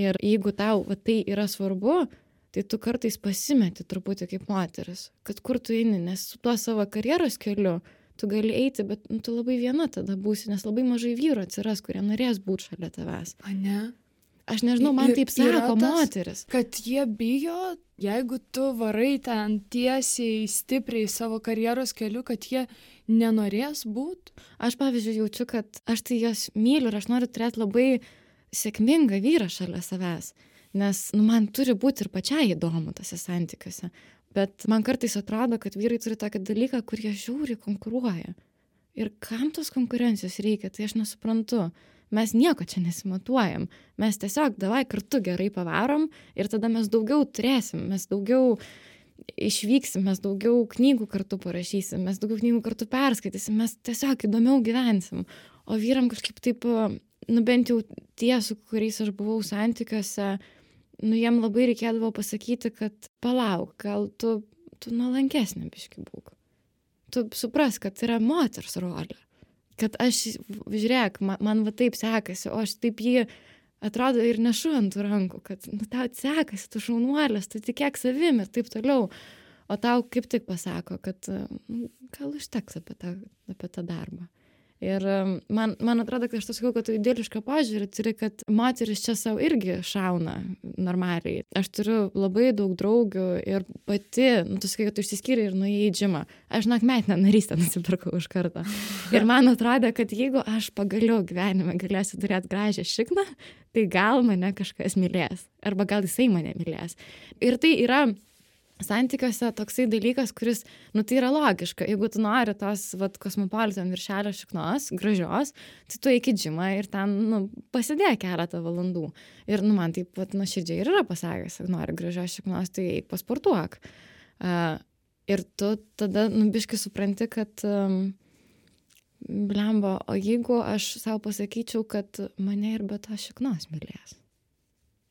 Ir jeigu tau tai yra svarbu, tai tu kartais pasimeti truputį kaip moteris, kad kur tu eini, nes su tuo savo karjeros keliu tu gali eiti, bet tu labai viena tada būsi, nes labai mažai vyrų atsiras, kurie norės būti šalia tavęs. A ne? Aš nežinau, man taip sako moteris. Kad jie bijo, jeigu tu varai ten tiesiai, stipriai savo karjeros keliu, kad jie nenorės būti. Aš, pavyzdžiui, jaučiu, kad aš tai jas myliu ir aš noriu turėti labai sėkmingą vyrą šalia savęs. Nes man turi būti ir pačiai įdomu tose santykiuose. Bet man kartais atrodo, kad vyrai turi tokį dalyką, kur jie žiauriai konkuruoja. Ir kam tos konkurencijos reikia, tai aš nesuprantu. Mes nieko čia nesimatuojam. Mes tiesiog davai kartu gerai pavarom ir tada mes daugiau turėsim, mes daugiau išvyksim, mes daugiau knygų kartu parašysim, mes daugiau knygų kartu perskaitysim, mes tiesiog įdomiau gyvensim. O vyram kažkaip taip, bent jau tie, su kuriais aš buvau santykiuose, jiem labai reikėdavo pasakyti, kad palauk, gal tu nuolankesnė biškį būk. Tu supras, kad yra moters rolė. Kad aš, žiūrėk, man va taip sekasi, o aš taip jį atrodo ir nešu ant rankų, kad tau sekasi, tu šaunuolės, tu tikėk savim ir taip toliau. O tau kaip tik pasako, kad gal užteks apie tą darbą. Ir man atrodo, kad aš to sakau, kad tu idilišką požiūrį turi, kad moteris čia savo irgi šauna normaliai. Aš turiu labai daug draugių ir pati, tu sakai, kad tu išsiskyrei ir nuėjai į džimą. Aš metinę narystę nusipirkau iš karto. Ir man atrodo, kad jeigu aš pagaliau gyvenime galėsiu turėti gražią šikną, tai gal mane kažkas mylės. Arba gal jisai mane mylės. Ir tai yra santykiuose toksai dalykas, kuris, tai yra logiška. Jeigu tu nori tos, kosmopolitan viršelio šiknos, gražios, tai tu eik į džimą ir ten, pasidėk keletą valandų. Ir, man taip, nuoširdžiai ir yra pasakęs, jeigu nori gražios šiknos, tai eik pasportuok. Ir tu tada, biškai supranti, kad, blemba, o jeigu aš savo pasakyčiau, kad mane ir be to šiknos mylės.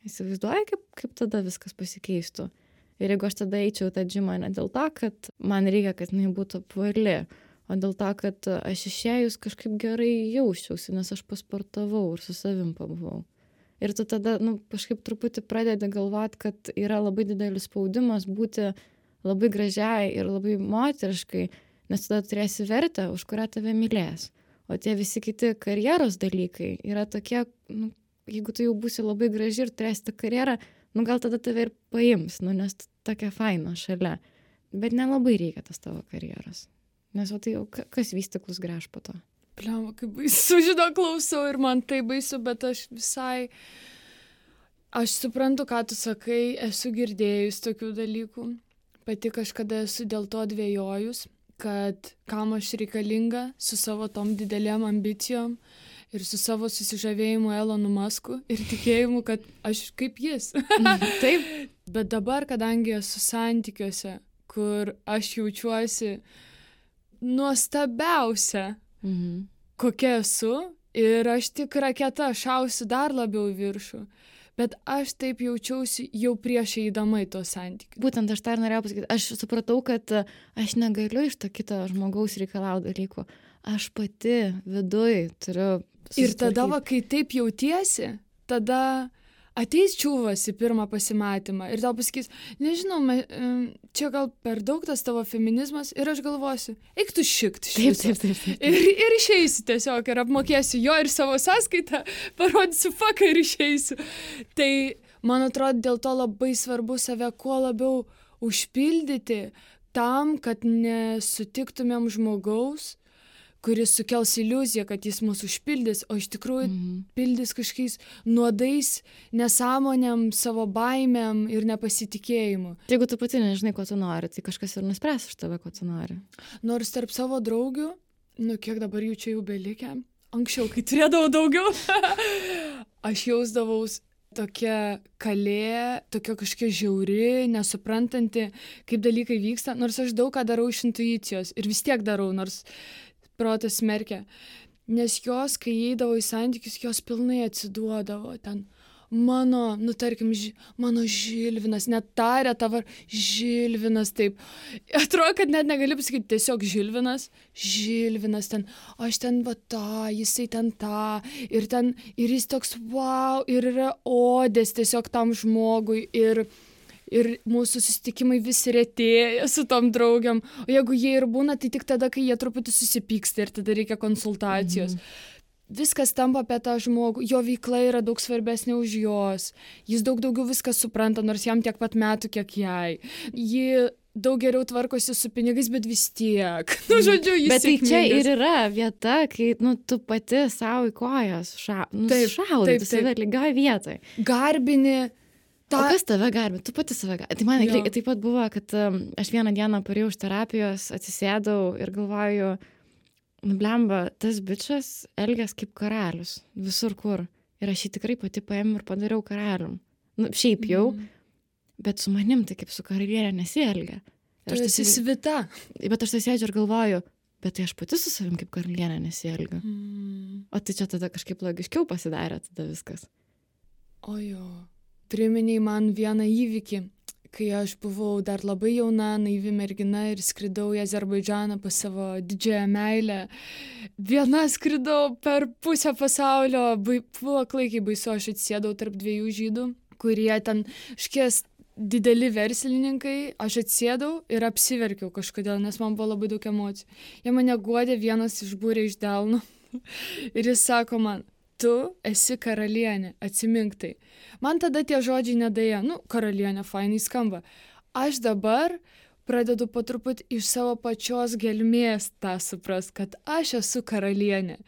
Įsivaizduoji, kaip tada viskas pasikeistų. Ir jeigu aš tada eičiau tą džimą ne dėl to, kad man reikia, kad jinai būtų apvali, o dėl to, kad aš išėjus kažkaip gerai jausčiausi, nes aš pasportavau ir su savim pabuvau. Ir tu tada kažkaip truputį pradedi galvoti, kad yra labai didelis spaudimas būti labai gražiai ir labai moteriškai, nes tada turėsi vertę, už kurią tave mylės. O tie visi kiti karjeros dalykai yra tokie, jeigu tu jau būsi labai graži ir turėsi tą karjerą, gal tada tave ir paims, nes tokia faina šalia. Bet nelabai reikia tas tavo karjeros. Nes tai jau kas vystiklus gręš po to. Pliama, kaip baisu, klausau ir man tai baisu, bet aš visai... Aš suprantu, ką tu sakai, esu girdėjus tokių dalykų. Pati kažkada esu dėl to dvejojus, kad kam aš reikalinga su savo tom didelėm ambicijom ir su savo susižavėjimu Elonu Musku ir tikėjimu, kad aš kaip jis. Taip. Bet dabar, kadangi esu santykiuose, kur aš jaučiuosi nuostabiausia, kokia esu, ir aš tik raketa šausiu dar labiau į viršų. Bet aš taip jaučiausi jau prieš eidama į tos santykius. Būtent aš tą ir norėjau pasakyti. Aš supratau, kad aš negaliu iš to kito žmogaus reikalauti dalykų. Aš pati viduj turiu susitvarkyti. Ir tada, kai taip jautiesi, tada ateis čiūvas į pirmą pasimatymą ir tau pasakys, nežinau, čia gal per daug tas tavo feminizmas, ir aš galvosiu, eik tu šikt šitą. Taip. Ir išeisiu tiesiog, ir apmokėsiu jo ir savo sąskaitą, parodysiu faką ir išeisiu. Tai, man atrodo, dėl to labai svarbu save kuo labiau užpildyti tam, kad nesutiktumėm žmogaus, kuris sukels iliuziją, kad jis mus užpildys, o iš tikrųjų pildys kažkokiais nuodais, nesąmonėm, savo baimėm ir nepasitikėjimu. Jeigu tu pati nežinai, ko tu nori, tai kažkas ir nuspręs už tave, ko tu nori. Nors tarp savo draugių, kiek dabar jų čia jau belikę, anksčiau, kai turėdavau daugiau, aš jausdavaus tokia kalė, tokia kažkokia žiauri, nesuprantanti, kaip dalykai vyksta, nors aš daug ką darau iš intuicijos ir vis tiek darau, nors protas smerkia, nes jos, kai įeidavo į santykius, jos pilnai atsiduodavo ten. Tarkim, mano Žilvinas, net tarė tavo Žilvinas, taip. Atrodo, kad net negali pasakyti tiesiog Žilvinas ten, aš ten va tą, jisai ten tą, ir jis toks wow, ir yra odės tiesiog tam žmogui, ir mūsų susitikimai vis retėja su tom draugiam. O jeigu jie ir būna, tai tik tada, kai jie truputį susipyksta ir tada reikia konsultacijos. Viskas tampa apie tą žmogų. Jo veikla yra daug svarbesnė už jos. Jis daug daugiau viską supranta, nors jam tiek pat metų, kiek jai. Ji daug geriau tvarkosi su pinigais, bet vis tiek. Žodžiu, jis bet tai čia ir yra vieta, kai tu pati savo į kojas šaudai, tu save lygioj vietoj. Garbini. O kas tave garbė? Tu pati save garbė. Tai man taip pat buvo, kad aš vieną dieną parėjau iš terapijos, atsisėdau ir galvoju, blemba, tas bičas elgias kaip karalius, visur kur. Ir aš jį tikrai pati paėmiau ir padariau karalium. Šiaip jau, bet su manim tai kaip su karalienė nesielgia. Tu esi svita. Bet aš tai sėdžiu ir galvoju, bet tai aš pati su savim kaip karalienė nesielgiu. O tai čia tada kažkaip logiškiau pasidarė tada viskas. Ojo. Priminei man vieną įvykį, kai aš buvau dar labai jauna, naivi mergina ir skridau į Azerbaidžaną pas savo didžiąją meilę. Viena skridau per pusę pasaulio, buvo klaikiai baisu, aš atsėdau tarp dviejų žydų, kurie ten škies dideli verslininkai, aš atsėdau ir apsiverkiau kažkodėl, nes man buvo labai daug emocijų. Jie mane guodė, vienas išbūrė iš delno ir jis sako man, tu esi karalienė, atsimink tai. Man tada tie žodžiai nedaėjo, karalienė, fainai skamba. Aš dabar pradedu po truputį iš savo pačios gelmės tą suprast, kad aš esu karalienė.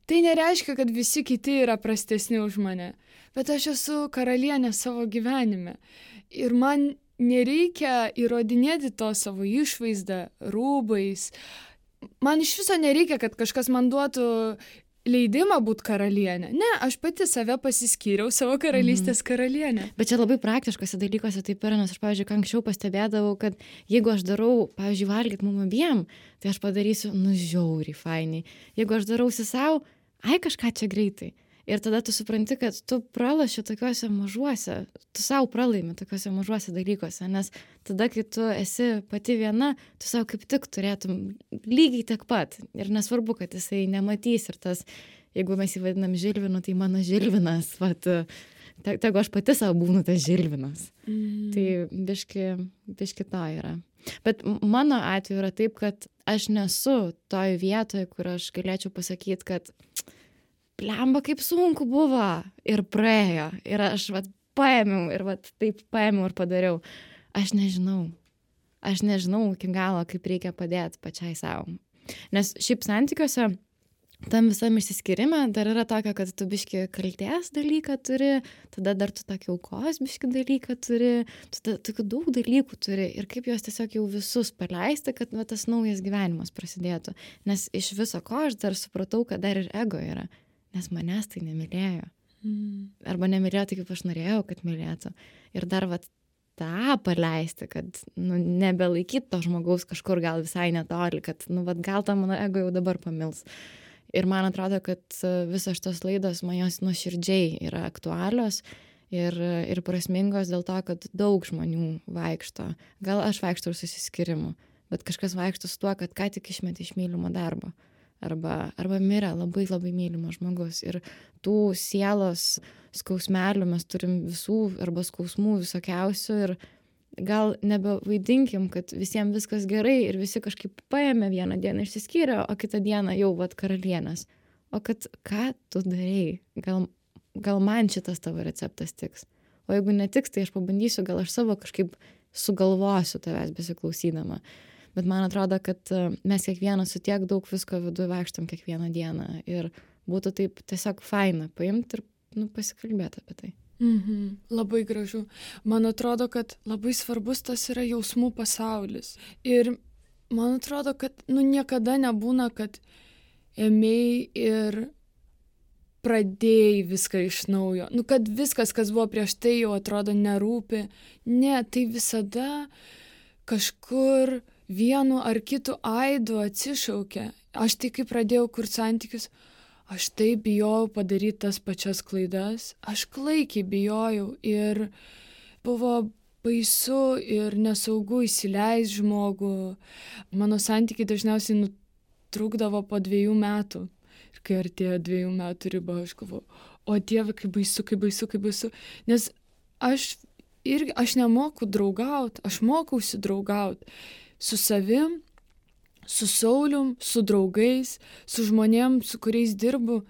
Tai nereiškia, kad visi kiti yra prastesni už mane, bet aš esu karalienė savo gyvenime. Ir man nereikia įrodinėti to savo išvaizdą, rūbais. Man iš viso nereikia, kad kažkas man duotų leidimą būti karalienė. Ne, aš pati save pasiskyriau savo karalystės karalienė. Bet čia labai praktiškose dalykuose taip yra, nes aš, pavyzdžiui, anksčiau pastebėdavau, kad jeigu aš darau, pavyzdžiui, valgyt mum abiem, tai aš padarysiu, žiauriai fainai. Jeigu aš darausi savo, kažką čia greitai. Ir tada tu supranti, kad tu pralaši tokiuose mažuose, tu savo pralaimi tokiuose mažuose dalykuose, nes tada, kai tu esi pati viena, tu savo kaip tik turėtum lygiai tiek pat. Ir nesvarbu, kad jisai nematys ir tas, jeigu mes jį vadinam Žilvinu, tai mano Žilvinas, tegu aš pati savo būnu tas Žilvinas. Tai biški to yra. Bet mano atveju yra taip, kad aš nesu toj vietoje, kur aš galėčiau pasakyti, kad blemba, kaip sunku buvo ir praėjo. Ir aš paėmiau ir taip paėmiau ir padariau. Aš nežinau iki galo, kaip reikia padėti pačiai savo. Nes šiaip santykiuose tam visam išsiskyrime dar yra tokio, kad tu biški kaltės dalyką turi, tada dar tu tokį aukos biški dalyką turi, tu tokių daug dalykų turi ir kaip juos tiesiog jau visus paleisti, kad va, tas naujas gyvenimas prasidėtų. Nes iš viso ko aš dar supratau, kad dar ir ego yra, nes manęs tai nemylėjo. Arba nemylėjo taip, kaip aš norėjau, kad mylėtų. Ir dar va tą paleisti, kad nebelaikyt to žmogaus kažkur gal visai netoli, kad vat, gal tą mano ego jau dabar pamils. Ir man atrodo, kad visos šitos laidos man jos nuoširdžiai yra aktualios ir prasmingos dėl to, kad daug žmonių vaikšto. Gal aš vaikštau ir susiskyrimu, bet kažkas vaikšto su tuo, kad ką tik išmetė iš mylimo darbo. Arba mirė labai labai mylimas žmogus. Ir tų sielos skausmelių mes turim visų arba skausmų visokiausių ir gal nebevaidinkim, kad visiems viskas gerai ir visi kažkaip paėmė vieną dieną išsiskyrė, o kitą dieną jau vat karalienės. O kad ką tu darei? Gal man šitas tavo receptas tiks? O jeigu netiks, tai aš pabandysiu, gal aš savo kažkaip sugalvosiu tavęs besiklausydama. Bet man atrodo, kad mes kiekvienas su tiek daug visko viduje vaikštam kiekvieną dieną ir būtų taip tiesiog faina paimti ir pasikalbėti apie tai. Labai gražu. Man atrodo, kad labai svarbus tas yra jausmų pasaulis. Ir man atrodo, kad niekada nebūna, kad ėmėjai ir pradėjai viską iš naujo. Kad viskas, kas buvo prieš tai, jau atrodo nerūpi. Ne, tai visada kažkur vienu ar kitu aidu atsišaukia. Aš tai, kai pradėjau kurti santykius, aš taip bijojau padaryti tas pačias klaidas. Aš klaikiai bijojau ir buvo baisu ir nesaugu įsileis žmogų. Mano santykiai dažniausiai nutrūkdavo po 2 metų. Ir kai artėjo 2 metų riba, aš galvoju, o Dieve, kaip baisu, kaip baisu, kaip baisu. Nes aš nemoku draugauti, aš mokausi draugauti su savim, su Saulium, su draugais, su žmonėm, su kuriais dirbu.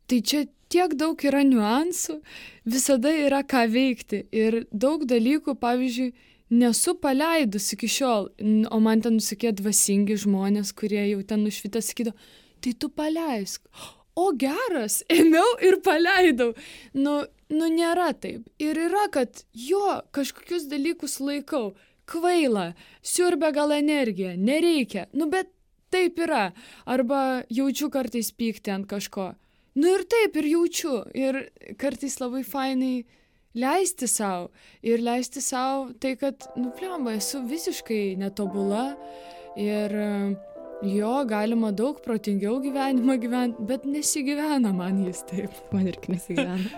Tai čia tiek daug yra niuansų, visada yra ką veikti. Ir daug dalykų, pavyzdžiui, nesu paleidus iki šiol, o man ten nusikė dvasingi žmonės, kurie jau ten nušvitę sakydavo, tai tu paleisk. O geras, ėmiau ir paleidau. Nėra taip. Ir yra, kad kažkokius dalykus laikau. Kvaila, siurbia gal energiją, nereikia, bet taip yra. Arba jaučiu kartais pyktį ant kažko. Ir taip, ir jaučiu. Ir kartais labai fainai leisti savo. Ir leisti savo tai, kad, blemba, esu visiškai netobula. Ir galima daug protingiau gyvenimą gyventi, bet nesigyvena man jis taip. Man irgi nesigyvena.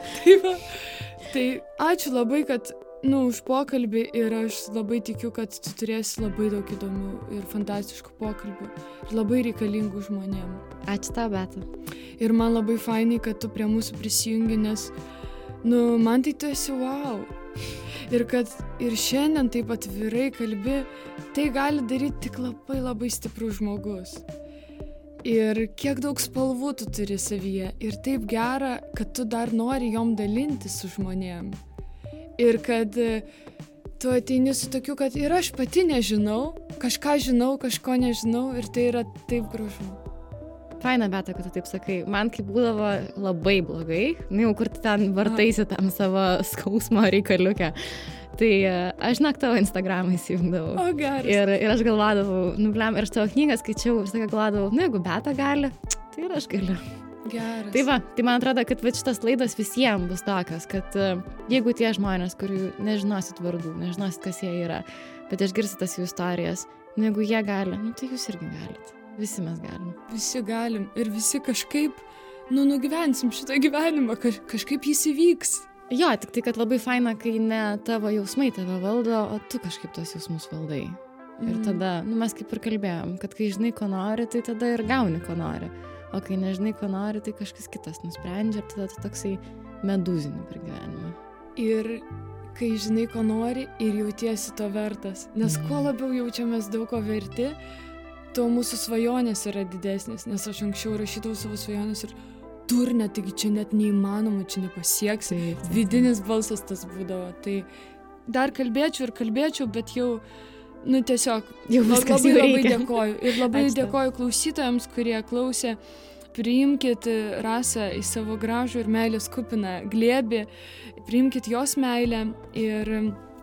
Tai ačiū labai, kad už pokalbį ir aš labai tikiu, kad tu turėsi labai daug įdomių ir fantastiškų pokalbių ir labai reikalingų žmonėm. Ačiū tau, Beata. Ir man labai fainai, kad tu prie mūsų prisijungi, nes, man tai tu esi wow. Ir kad ir šiandien taip atvirai kalbi, tai gali daryti tik labai labai stiprus žmogus. Ir kiek daug spalvų tu turi savyje. Ir taip gera, kad tu dar nori jom dalintis su žmonėm. Ir kad tu ateini su tokiu, kad ir aš pati nežinau, kažką žinau, kažko nežinau ir tai yra taip gražu. Faina, Beata, kad tu taip sakai. Man kaip būdavo labai blogai, jau kur ten vartaisi tam savo skausmo reikaliukę. Tai aš tavo Instagramą įsijungdavau. O, geras. Ir aš galvodavau, ir aš tavo knygą skaičiau ir sakai galvodavau, jeigu Beata gali, tai ir aš galiu. Geras. Tai man atrodo, kad šitas laidos visiems bus tokios, kad jeigu tie žmonės, kurių nežinosit vardų, nežinosit, kas jie yra, bet išgirsit tas jų istorijas, jeigu jie gali, tai jūs irgi galit. Visi mes galim. Visi galim ir visi kažkaip, nugyvensim šitą gyvenimą, kažkaip jis įvyks. Jo, tik tai, kad labai faina, kai ne tavo jausmai tave valdo, o tu kažkaip tos jausmus valdai. Ir tada, mes kaip ir kalbėjom, kad kai žinai, ko nori, tai tada ir gauni, ko nori. O kai nežinai, ko nori, tai kažkas kitas nusprendžia ir tada tu toksai medūzinį per gyvenimą. Ir kai žinai, ko nori ir jautiesi to vertas. Nes kuo labiau jaučiamės daug ko verti, tuo mūsų svajonės yra didesnės. Nes aš anksčiau rašydavau savo svajonės ir durne, taigi čia net neįmanoma, čia nepasieksi. Vidinis balsas tas būdavo. Tai dar kalbėčiau, bet jau tiesiog jau labai dėkoju. Ir labai dėkoju klausytojams, kurie klausė. priimkit Rasą į savo gražų ir meilės kupiną glėbį, priimkit jos meilę ir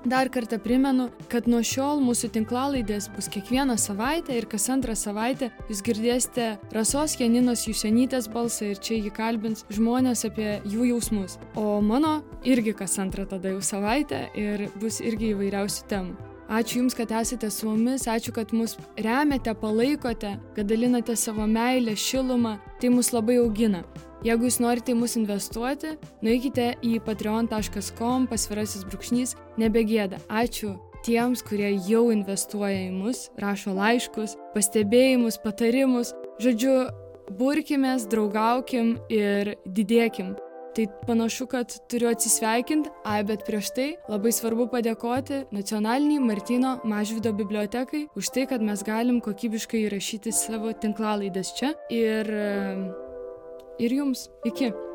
dar kartą primenu, kad nuo šiol mūsų tinklalaidės bus kiekvieną savaitę ir kas antrą savaitę jūs girdėsite Rasos Janinos Jusionytės balsą ir čia jį kalbins žmonės apie jų jausmus. O mano irgi kas antrą tada jau savaitę ir bus irgi įvairiausių temų. Ačiū Jums, kad esate su mumis, ačiū, kad mus remiate, palaikote, kad dalinate savo meilę, šilumą, tai mus labai augina. Jeigu jūs norite į mus investuoti, nueikite į patreon.com/, nebegėda. Ačiū tiems, kurie jau investuoja į mus, rašo laiškus, pastebėjimus, patarimus. Žodžiu, burkimės, draugaukim ir didėkim. Tai panašu, kad turiu atsisveikinti, bet prieš tai labai svarbu padėkoti Nacionaliniai Martyno Mažvydo bibliotekai už tai, kad mes galim kokybiškai įrašyti savo tinklalaides čia ir jums. Iki.